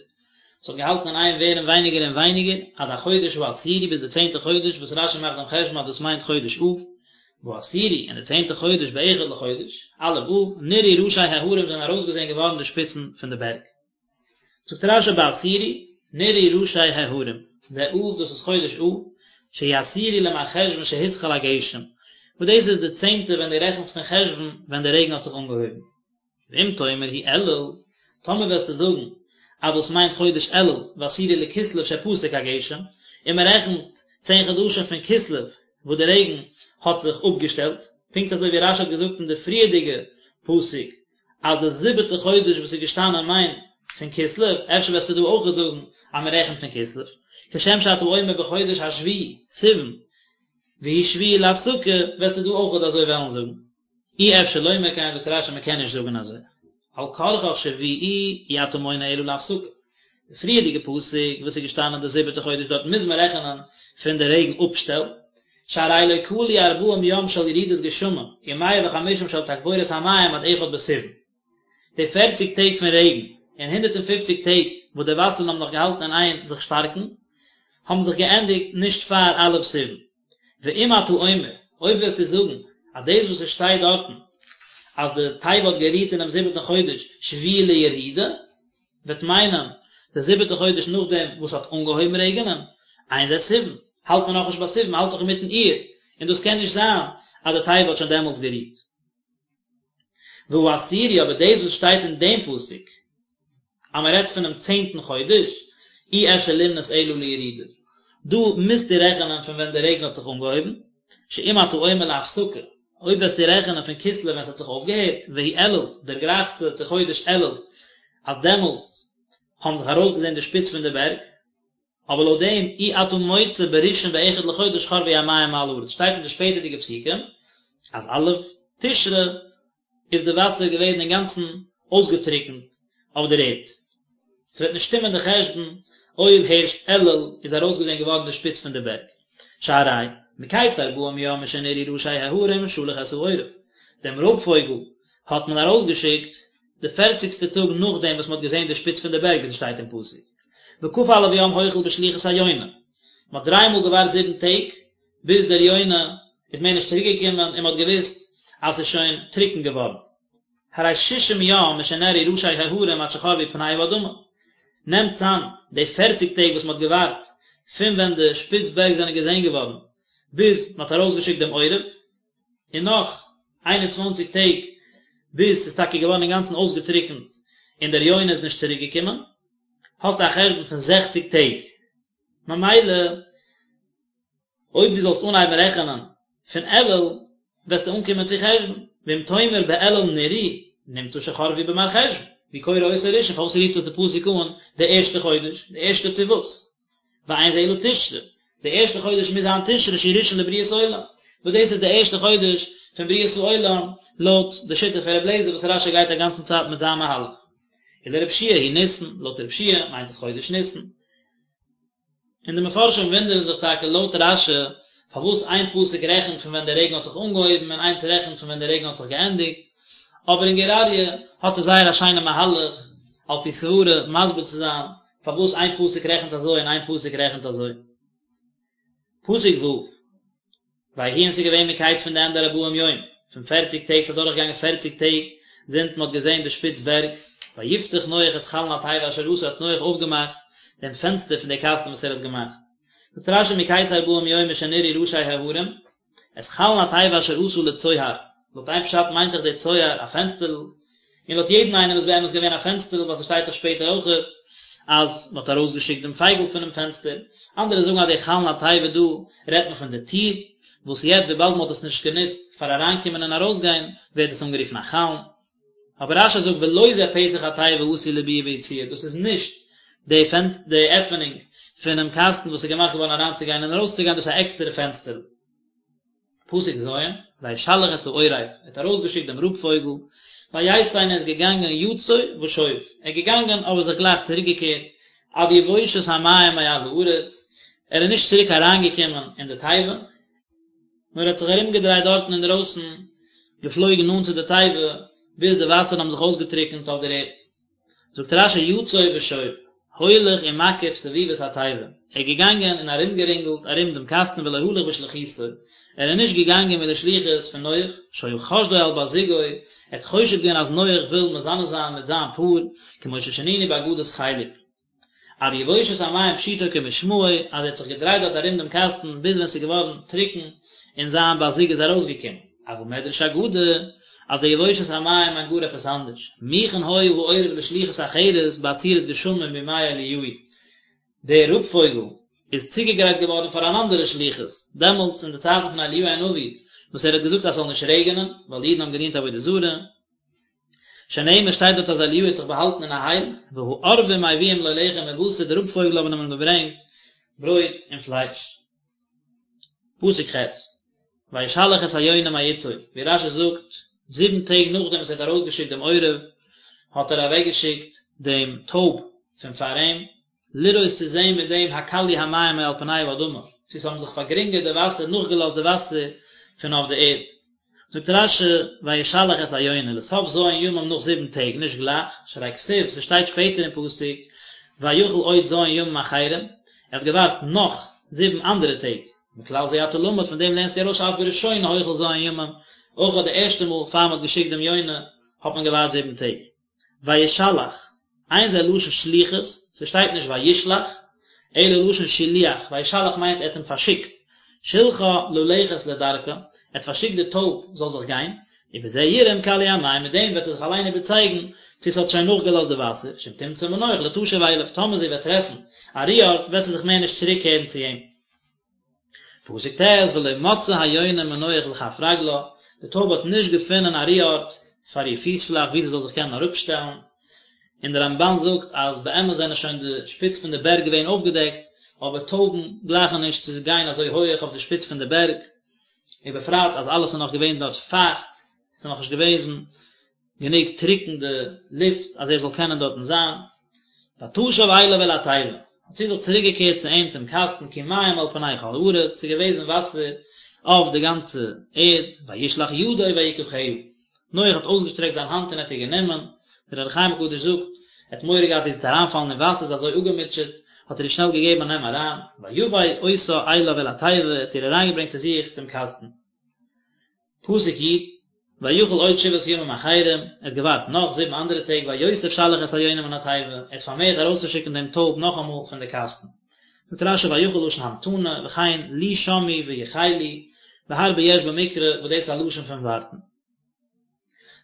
Speaker 1: ס'האט געהאלטן אין איין ווערן ווייניגער און ווייניגער, עד החודש העשירי ביז די צענטע חודש, וואס רש"י מאכט דעם חשבון אז דאס מיינט חודש אב, בעשירי, אין די צענטע חודש באחד לחודש, א' אב, נראו ראשי ההרים זענען ארויסגעזען געווארן די שפיצן פון די בערג. זאגט רש"י בעשירי, נראו ראשי ההרים, זה אב דאס איז חודש אב, שהוא עשירי למרחשוון שהתחיל הגשם, וואס דאס איז די צענטע ווען דו רעכנסט פון חשוון ווען די רעגן האט זיך אנגעהויבן. ואם תאמר הוא אלול, טאמער וועסטו זאגן אז דאס מיינט חודש אלול, ועשירי לכסלו שפסק הגשם, און מען רעכנט צען חדשים פון כסלו וואס די רעגן האט זיך אפגעשטעלט, פונקט אזוי ווי רש"י האט געזאגט אין די פריערדיגע פסוק אז די זיבעטע חודש וואס איז געשטאנען מיינט פון כסלו, אפשר וועסטו דא אויך זאגן אז מען רעכנט פון כסלו, כשם שאתה אומר בחודש השביעי, סיוון, והוא שביעי להפסקה, וועסטו דא אויך אזוי וועלן זאגן. אי אפשר לומר כן, זאגט רש"י מען קען נישט זאגן אזוי, על כרחך שביעי אי אתה מונה אלא להפסקה. די פריערדיגע פסוק וואס איז געשטאנען די זיבעטע חודש דארט מוז מען רעכענען פון די רעגן אפשטעל, שהרי לא כלו ארבעים יום של ירידת גשמים ומאה וחמישים של תגבורת המים עד אחד בסיוון. די פערציג טעג פון רעגן און הונדערט און פופציג טעג וואס די וואסערן האבן נאך געהאלטן אין איין זיך שטארקן, האבן זיך געענדיגט נישט פאר א' סיוון. ואם אתה אומר, אויב וועסטו זאגן אז דאס וואס עס שטייט דארטן אז די תיבה האט גערוהט אינעם זיבעטן חודש שביעי לירידה, וועט מיינען די זיבעטע חודש נאכדעם וואס ס'האט אנגעהויבן רעגענען, אין זה סיוון, האלט מען נאכנישט ביי סיוון, מ'האלט נאך אינמיטן אייר, און דאס קען נישט זיין אז די תיבה האט שוין דעמאלטס גערוהט. והעשירי אבער דאס וואס שטייט אין דעם פסוק אז מען רעדט פונעם צענטן חודש, אי אפשר למנות אלא לירידה, דא מוזטו רעכענען פון ווען די רעגן האט זיך אנגעהויבן, שאם אתה אומר להפסקה, אויב וועסטו רעכענען פון כסלו ווען ס'האט זיך אויפגעהערט, והוא אלול, דערגרייכסטו צו חודש אלול, אז דעמאלטס. האבן זיך ארויסגעזען די שפיץ פון די בערג, אבער לויט דעם אי אתה מוצא בראשון באחד לחודש חרבו המים מעל הארץ שטייט אין די שפעטערדיגע פסוקים אז א' תשרי איז די וואסער געווען אינגאנצן אויסגעטריקנט אויף דער ערד. ס'וועט נישט שטימען די חשבון אויב הערשט אלול איז ארויסגעזען געווארן די שפיץ פון די בערג. שהרי מקץ ארבעים יום משנראו ראשי ההרים שלח את העורב, דעם רויב פויגל האט מען ארויסגעשיקט די פערציגסטע טאג נאכדעם וואס מ'האט געזען די שפיץ פון די בערג ווי ס'שטייט אין פסוק וכ"א יום החל בשליחות היונה, מ'האט דריי מאל געווארט זיבן טעג ביז דער יונה איז מער נישט צוריק געקומען און מ'האט געוואוסט אז ס'איז שוין טרוקן געווארן. הרי שישים יום משנראו ראשי ההרים עד שחרבו פני האדמה. נעמט צאם די פערציג טעג וואס מ'האט געווארט פון ווען די שפיץ בערג זענען געזען געווארן ביז מ'האט ארויסגעשיקט דעם עורב, און נאך 21 טעג ביז ס'איז טאקע געווארן אינגאנצן אויסגעטריקנט און דער יונה איז נישט צוריק געקומען, האסטו א חשבון פון זעכציג טעג. ממילא אויב דו זאלסט אנהייבן רעכענען פון אלול וועסטו אנקומען צו חשוון, ואם תאמר באלול נראו, נמצא שחרבו במרחשוון, והוא קורא אותו ראשון, פארוואס רופט עס די פסוק אן די ערשטע חודש, די ערשטע צו וואס? ואין זה אלא תשרי, די ערשטע חודש מוז זיין תשרי שהוא ראשון לבריאת עולם, וואס דאס איז די ערשטע חודש פון בריאת העולם לויט די שיטה פון רבי אליעזר וואס רש"י גייט א גאנצן צייט מיט זיין מהלך. ולרבי יהושע הוא ניסן, לויט רבי יהושע מיינט עס חודש ניסן. און די מפרשים וואונדערן זיך טאקע לויט רש"י פארוואס איין פסוק רעכנט פון ווען דער רעגן האט זיך אנגעהויבן און איינס רעכנט פון ווען דער רעגן האט זיך געענדיגט, אבער אין גור אריה האט ער זייער א שיינע מהלך על פי סברה מסביר צו זיין פארוואס איין פסוק רעכנט אזוי און איין פסוק רעכנט אזוי. פסוק ו'. ויהי און ס'איז געווען מקץ פון די ענדע ארבעים יום, פון פערציג טעג, ס'איז אדורכגעגאנגען פערציג טעג זינט מ'האט געזען די שפיץ בערג, ויפתח נח את חלון התיבה אשר עשה האט נח אויפגעמאכט דעם פענסטער פון די קאסטן וואס ער האט געמאכט. זאגט רש"י מקץ ארבעים יום משנראו ראשי ההרים, את חלון התיבה אשר עשה לצוהר, לויט איין פשט מיינט דאך דער צוהר א פענסטערל, און לויט יעדן איינעם איז באמת געווען א פענסטערל ווייל ס'שטייט דאך שפעטער אויכעט אז מ'האט ארויסגעשיקט דעם פייגל פונעם פענסטער, אנדערע זאגן אז די חלון התיבה דא רעדט מען פון די טיר, וואס יעצט וויבאלד מ'האט עס נישט גענוצט פאר אריינקומען און ארויסגיין ווערט עס אנגערופן א חלון. אבער רש"י זאגט ולא זה פתח התיבה העשוי לביאה וביציאה, דאס איז נישט די פענס די עפענונג פונעם קאסטן וואס איז געמאכט געווארן אריינצוגיין און ארויסצוגיין, דאס איז א עקסטערע פענסטערל. פסוק ז', וישלח את העורב, ער האט ארויסגעשיקט דעם רויב פויגל, ויצא און ער איז געגאנגען יצוא ושוב, ער איז געגאנגען אבער זיך גלייך צוריקגעקערט, עד יבושת המים מעל הארץ, ער איז נישט צוריק אריינגעקומען אין די תיבה, נאר ער האט זיך ארומגעדרייט דארטן אינדרויסן, געפלויגן נאנט צו די תיבה, ביז די וואסערן האבן זיך אויסגעטריקנט אויף דער ערד. זאגט רש"י יצוא ושוב, הולך ומקיף סביבות התיבה, ער איז געגאנגען און ארומגערינגלט ארום דעם קאסטן ולא הלך בשליחותו, ער איז נישט געגאנגען מיט די שליחות פון נח, שהיה חושדו על בת זוגו, ער האט חושד געווען אז נח וויל מזנה זיין מיט זיין פאר, כמו ששנינו באגדת חלק. עד יבושת המים פשוטו כמשמעו, אז ער האט זיך געדרייט דארט ארום דעם קאסטן ביז ווען ס'איז געווארן טרוקן און זיין בת זוג איז ארויסגעקומען. אבל מדרש אגדה, אז די יבושת המים מיינט גאר עפעס אנדערש. מוכן היה העורב לשליחות אחרת בעצירת גשמים בימי אליהו. דער רויב פויגל איז צוגעגרייט געווארן פאר אן אנדערע שליחות, דעמאלטס אין די צייטן פון אליהו הנביא, וואס ער האט געזאגט אז ס'זאל נישט רעגענען, ווייל די אידן האבן געדינט עבודה זרה. שנאמר שטייט דארט אז אליהו האט זיך באהאלטן אין א הייל, והעורבים מביאים לו לחם ובשר, די רויב פויגל האבן אים געברענגט ברויט און פלייש. פסוק ח', וישלח את היונה מאתו, ווי רש"י זאגט, זיבן טעג נאכדעם וואס ער האט ארויסגעשיקט דעם עורב, האט ער אוועקגעשיקט דעם טויב פון פאר אים, לראות צו זען מיט דעם הקלו המים מעל פני האדמה, צו ס'האבן זיך פארגרינגערט די וואסער, נאכגעלאזט די וואסער פון אויף די ערד. זאגט רש"י, וישלח את היונה, לסוף ז' ימים נאך זיבן טעג, נישט גלייך, שהרי כתיב, ס'שטייט שפעטער אין פסוק, ויחל עוד ז' ימים אחרים, ער האט געווארט נאך זיבן אנדערע טעג, מכלל זה אתה למד, פון דעם לערנסטו ארויס שאף בראשונה החל ז' ימים, אויך אט די ערשטע מאל פאר מ'האט געשיקט דעם יונה, האט מען געווארט זיבן טעג. וישלח, אין זה לשון שליחות, ס'שטייט נישט וישלח, אלא לשון שילוח, וישלח מיינט ער האט אים פארשיקט, שילחה ללכת לדרכה, ער האט פארשיקט די טויב זאל זיך גיין, ובזה יראה אם כלו המים, מיט דעם וועט ער זיך אליין איבערצייגן צו ס'האט שוין נאכגעלאזט די וואסער, שאם תמצא מנוח לא תשוב אליו, טאמער זי וועט טרעפן א רו ארט וועט זי זיך מער נישט צוריקקערן צו אים. פסוק ט' ולא מצאה היונה מנוח לכף רגלה, די טויב האט נישט געפונען א רו ארט פאר איר פיס פלאך וואו זי זאל זיך קענען אראפשטעלן. און דער רמבן זאגט אז באמת זענען שוין די שפיץ פון די בערג געווען אויפגעדעקט, אבער טויבן גלייכן נישט צו גיין אזוי הויעך אויף די שפיץ פון די בערג, ובפרט אז אלעס איז נאך געווען דארט פייכט, ס'איז נאך נישט געוועזן גענוג טרוקן די לופט אז ער זאל קענען דארטן זיין. ותשב אליו אל התיבה, האט זי זיך צוריק געקערט צו אים צום קאסטן כי מים על פני כל הארץ, ס'איז געוועזן וואסער אויף די גאנצע ערד, וישלח ידו ויקחה, נח האט אויסגעשטרעקט זיין האנט און האט איר גענומען, דער אור החיים הקדוש זאגט, ער האט מורא געהאט זי וועט אריינפאלן אין וואסער, זי איז אזוי אפגעמוטשעט, האט ער איר שנעל געגעבן א נעם אריין, ויבא אותה אליו אל התיבה, ער האט איר אריינגעברענגט צו זיך צום קאסטן. פסוק י', ויחל עוד שבעת ימים אחרים, ער האט געווארט נאך זיבן אנדערע טעג, ויוסף שלח את היונה מן התיבה, ער האט פארמערט ארויסצושיקן דעם טויב נאכאמאל פון די קאסטן. זאגט רשי ויחל לשון המתנה, וכן לי שמעו ויחלו, והרבה יש במקרא וואס דאס איז א לשון פון ווארטן.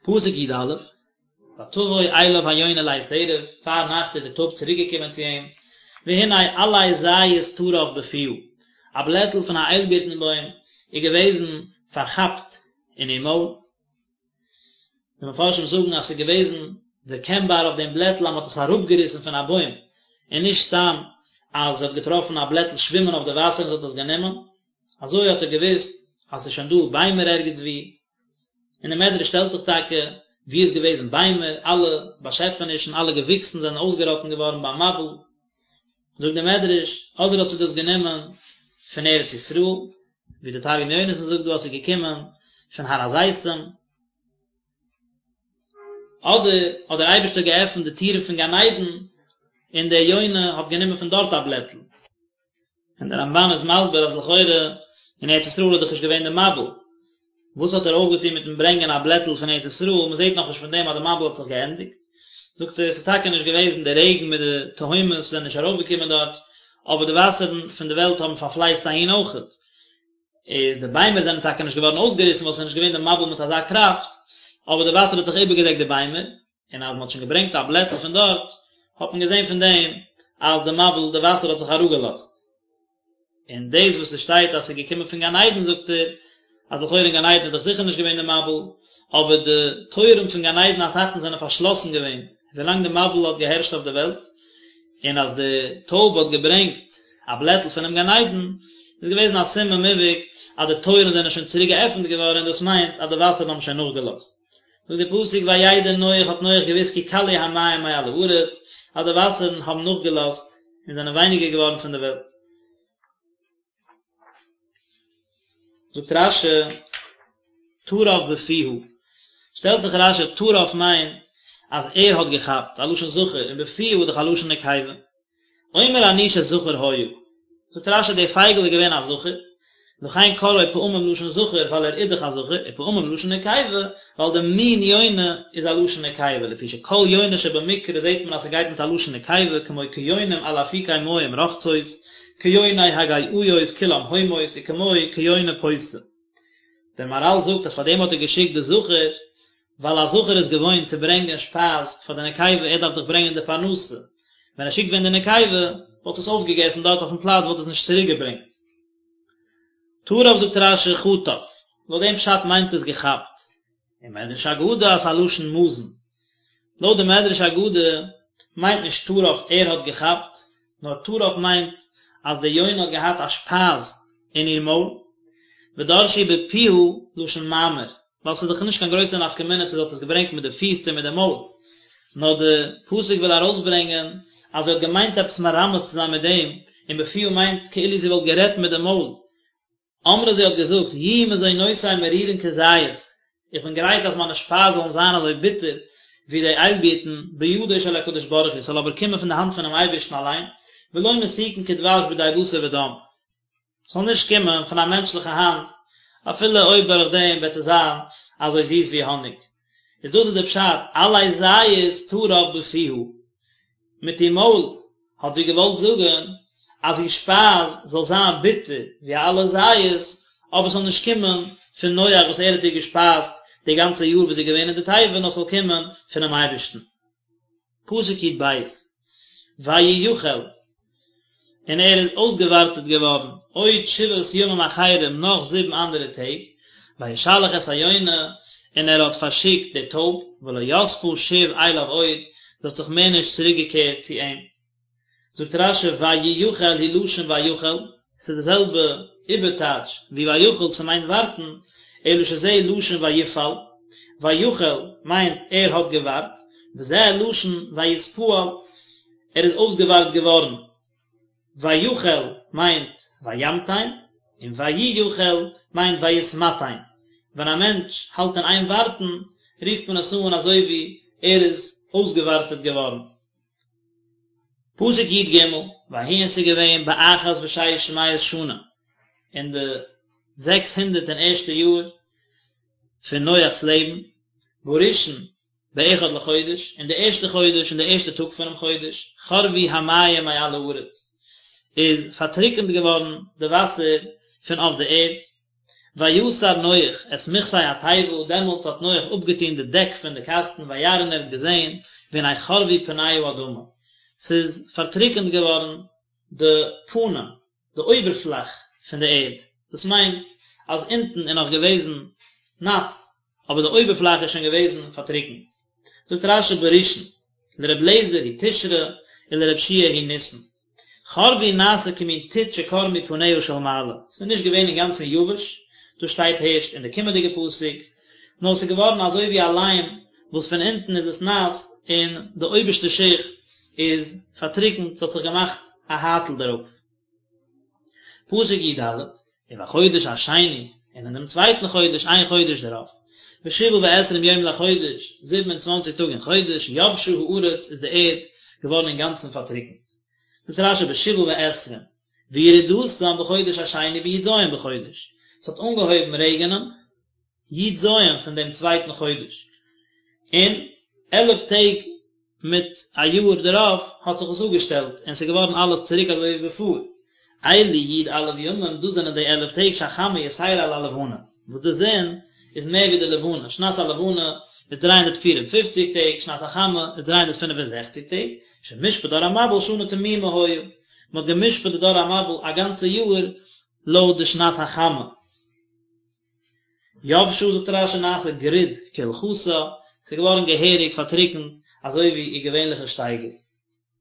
Speaker 1: פסוק י א, ותבוא אליו היונה לעת ערב, פארנאכט איז די טויב צוריק געקומען צו אים, והנה עלה זית טרף בפיה, א בלעטל פון א איילבירטן בוים איז געוועזן פארכאפט אין איר מויל. די מפרשים זאגן אז ס'איז געוועזן דערקענבאר אויף דעם בלעטל אז מ'האט עס אראפגעריסן פון א בוים, און נישט סתם אז זי האט געטראפן א בלעטל שווימען אויף די וואסער און זי האט עס גענומען. אזוי האט ער געוואוסט אז ס'איז שוין דא ביימער ערגעץ וואו. און דער מדרש שטעלט זיך טאקע, וואו איז געוועזן ביימער, אלע באשעפענישן, אלע געוויקסן זענען אויסגעראטן געווארן ביים מבול. זאגט דער מדרש, אדער האט זי דאס גענומען פון ארץ ישראל, ווי דער תרגום יונתן זאגט דא אז ס'איז געקומען פון הר הזיתים, אדער האט דער אייבערשטער געעפנט די טירן פון גן עדן און דער יונה האט גענומען פון דארט א בלעטל. און דער רמבן איז מסביר אז לכאורה אין ארץ ישראל איז דאך נישט געווען די מבול, וואס האט ער אויפגעטון מיטן ברענגען א בלעטל פון ארץ ישראל, מען זעט נאכנישט פון דעם אז די מבול האט זיך געענדיגט, זאגט ער עס איז טאקע נישט געוועזן די רעגן מיט די תהומות זענען נישט ארויפגעקומען דארט, אבער די וואסערן פון די וועלט האבן פארפלייצט אהין אויכעט, איז די ביימער זענען טאקע נישט געווארן אויסגעריסן ווייל עס איז נישט געווען די מבול מיט אזא קראפט, אבער די וואסער האט דאך איבערגעדעקט די ביימער, און אז מען האט שוין געברענגט א בלעטל פון דארט, האט מען געזען פון דעם אז די מבול, די וואסער האט זיך אראפגעלאזט. און דאס וואס עס שטייט אז עס איז געקומען פון גן עדן זאגט ער, אז לכאורה אין גן עדן איז דאך זיכער נישט געווען די מבול, אבער די טויערן פון גן עדן התחתון זענען פארשלאסן געווען ווילאנג די מבול האט געהערשט אויף די וועלט, און אז די טויב האט געברענגט א בלעטל פונעם גן עדן, איז געוועזן א סימן מובהק אז די טויערן זענען שוין צוריק געעפנט געווארן און דאס מיינט אז די וואסערן האבן שוין נאכגעלאזט. זאגט דער פסוק וידע נח האט נח געוואוסט כי כלו המים מעל הארץ, אז די וואסערן האבן נאכגעלאזט און זענען ווייניגער געווארן פון די וועלט. זאגט רשי, טרף בפיה, שטעלט זיך רשי טרף מיינט אז ער האט געכאפט, א לשון זכר, און בפיה איז דאך א לשון נקבה. אומר אני שזכר היה. זאגט רשי די פייגל איז געווען א זכר, לכן קראו פעמים לשון זכר ווייל ער איז דאך א זכר, ופעמים לשון נקבה ווייל די מין יונה איז א לשון נקבה, לפי שכל יונה שבמקרא זעט מען אז ס'גייט מיט א לשון נקבה כמו כיונים על אפיקי מים רוחצות, כיוני הגאיות כולם הומות וכמו כיונה פותה. דער מהרל זאגט אז פארדעם האט ער געשיקט די זכר ווייל א זכר איז געוואוינט צו ברענגען שפייז פאר די נקבה, ער דארף דאך ברענגען די פרנסה, ווען ער שיקט ווען די נקבה, וואלט עס אויפגעגעסן דארט אויפן פלאץ וואלט עס נישט צוריק געברענגט. טרף זאגט רשי חטף, לויט דעם פשט מיינט עס געכאפט. ומדרש אגדה אז ס'איז א לשון מזון. לויט די מדרש אגדה מיינט נישט טרף ער האט געכאפט, נאר טרף מיינט אז די יונה האט געהאט א שפייז אין איר מויל, ודרשו בפיה לשון מאמר, ווייל ס'איז דאך נישט קיין גרויסע נפקא מינה צו זי האט עס געברענגט מיט די פיס צו מיט די מויל, נאר די פסוק וויל ארויסברענגען אז זי האט געמיינט עפעס מרמז צו זיין מיט דעם, און בפיה מיינט כאילו זי וואלט גערעדט מיט די מויל, אמרה זי האט געזאגט, יהיו מזונותי מרירין כזית, איך בין גרייט אז מיינע שפייז זאלן זיין אזוי ביטער ווי די איילבירטן, בידו של הקדוש ברוך הוא, ס'זאל אבער קומען פון די האנט פונעם אייבערשטן אליין, ולא מתוקין כדבש בידי בשר ודם, ס'זאל נישט קומען פון א מענטשליכע האנט, אפילו אויב דורך דעם וועט עס זיין אזוי זיס ווי האניג. איז דאס איז די פשט, עלה זית טרף בפיה, מיט איר מויל האט זי געוואלט זאגן אז איר שפייז זאל זיין ביטער ווי א עלה זית, אבער ס'זאל נישט קומען פון נח וואס ער האט איר געשפייזט די גאנצע יאר וואס זי איז געווען אין די תיבה, נאר ס'זאל קומען פונעם אייבערשטן. פסוק י"ב, ויוכל. און ער איז אויסגעווארטעט געווארן עוד שבעת ימים אחרים נאך זיבן אנדערע טעג, וישלח את היונה, און ער האט פארשיקט די טויב, ולא יספה שוב אליו עוד, זי האט זיך מער נישט צוריק געקערט צו אים. זאגט רש"י וייחל הוא לשון ויחל, ס'איז די זעלבע איבערטייטש ווי ויחל, ס'מיינט ווארטן, אלא שזה לשון ויפעל, ויחל מיינט ער האט געווארט, וזה לשון ויתפעל, ער איז אויסגעווארט געווארן, ויחל מיינט וימתן, און וייחל מיינט ויתמתן, ווען א מענטש האלט אין איין ווארטן רופט מען עס אן אזוי ווי ער איז אויסגעווארטעט געווארן. פסוק י"ג, ויהי און ס'איז געווען באחת ושש מאות שנה, אין די זעקס הונדערט און ערשטע יאר פון נוח'ס לעבן, בראשון באחד לחודש, אין די ערשטע חודש אין די ערשטע טאג פונעם חודש, חרבו המים מעל הארץ, איז פארטריקענט געווארן די וואסער פון אויף די ערד, ויסר נח את מכסה התיבה, דעמאלטס האט נח אפגעטון די דעק פון די קאסטן, וירא און ער האט געזען, והנה חרבו פני האדמה, ס'איז פארטריקענט געווארן די פנים, די אויבערפלאך פון די ערד, דאס מיינט אז אונטן איז נאך געוועזן נאס, אבער די אויבערפלאך איז שוין געוועזן פארטריקנט. זאגט רש"י בראשון, לר' אליעזר הוא תשרי ולר' יהושע הוא ניסן. חרבו נעשה כמין טיט שקרמו פניה של מעלה, ס'איז נישט געווען אינגאנצן יבש, דאס שטייט הערשט אין די קומענדיגע פסוק, נאר ס'איז געווארן אזוי ווי א ליים וואס פון אונטן איז עס נאס און די אויבערשטע שיכט איז פארטריקנט, ס'האט זיך געמאכט א הייטל דערויף. פסוק י"ד, ובחודש השני, און אין דעם צווייטן חודש, איין חודש דערויף, בשבעה ועשרים יום לחודש, 27 טאג אין חודש, יבשה הארץ, איז די ערד געווארן אינגאנצן פארטריקנט. זאגט רש"י בשבעה ועשרים, וירידתם בחודש השני בי"ז בחודש, ס'האט אנגעהויבן רעגענען י"ז פון דעם צווייטן חודש, און עלף טעג מיט א יאר דערויף האט זיך עס אפגעשטעלט און ס'איז געווארן אלעס צוריק אזוי ווי בעפאר. אלו י"א ימים, דאס זענען די עלף טעג שהחמה יתירה על הלבנה, וואס די זון איז מער ווי די לבנה, שנת הלבנה איז 354 טעג, שנת החמה איז 365 טעג, שמשפט דור המבול שנה תמימה היה, מען האט גע'משפט די דור המבול א גאנצע יאר לויט די שנת החמה. יבשה זאגט רש"י נעשה גריד כהלכתה, ס'איז געווארן געהעריג פארטריקנט אזוי ווי איר געווענליכע שטייגער.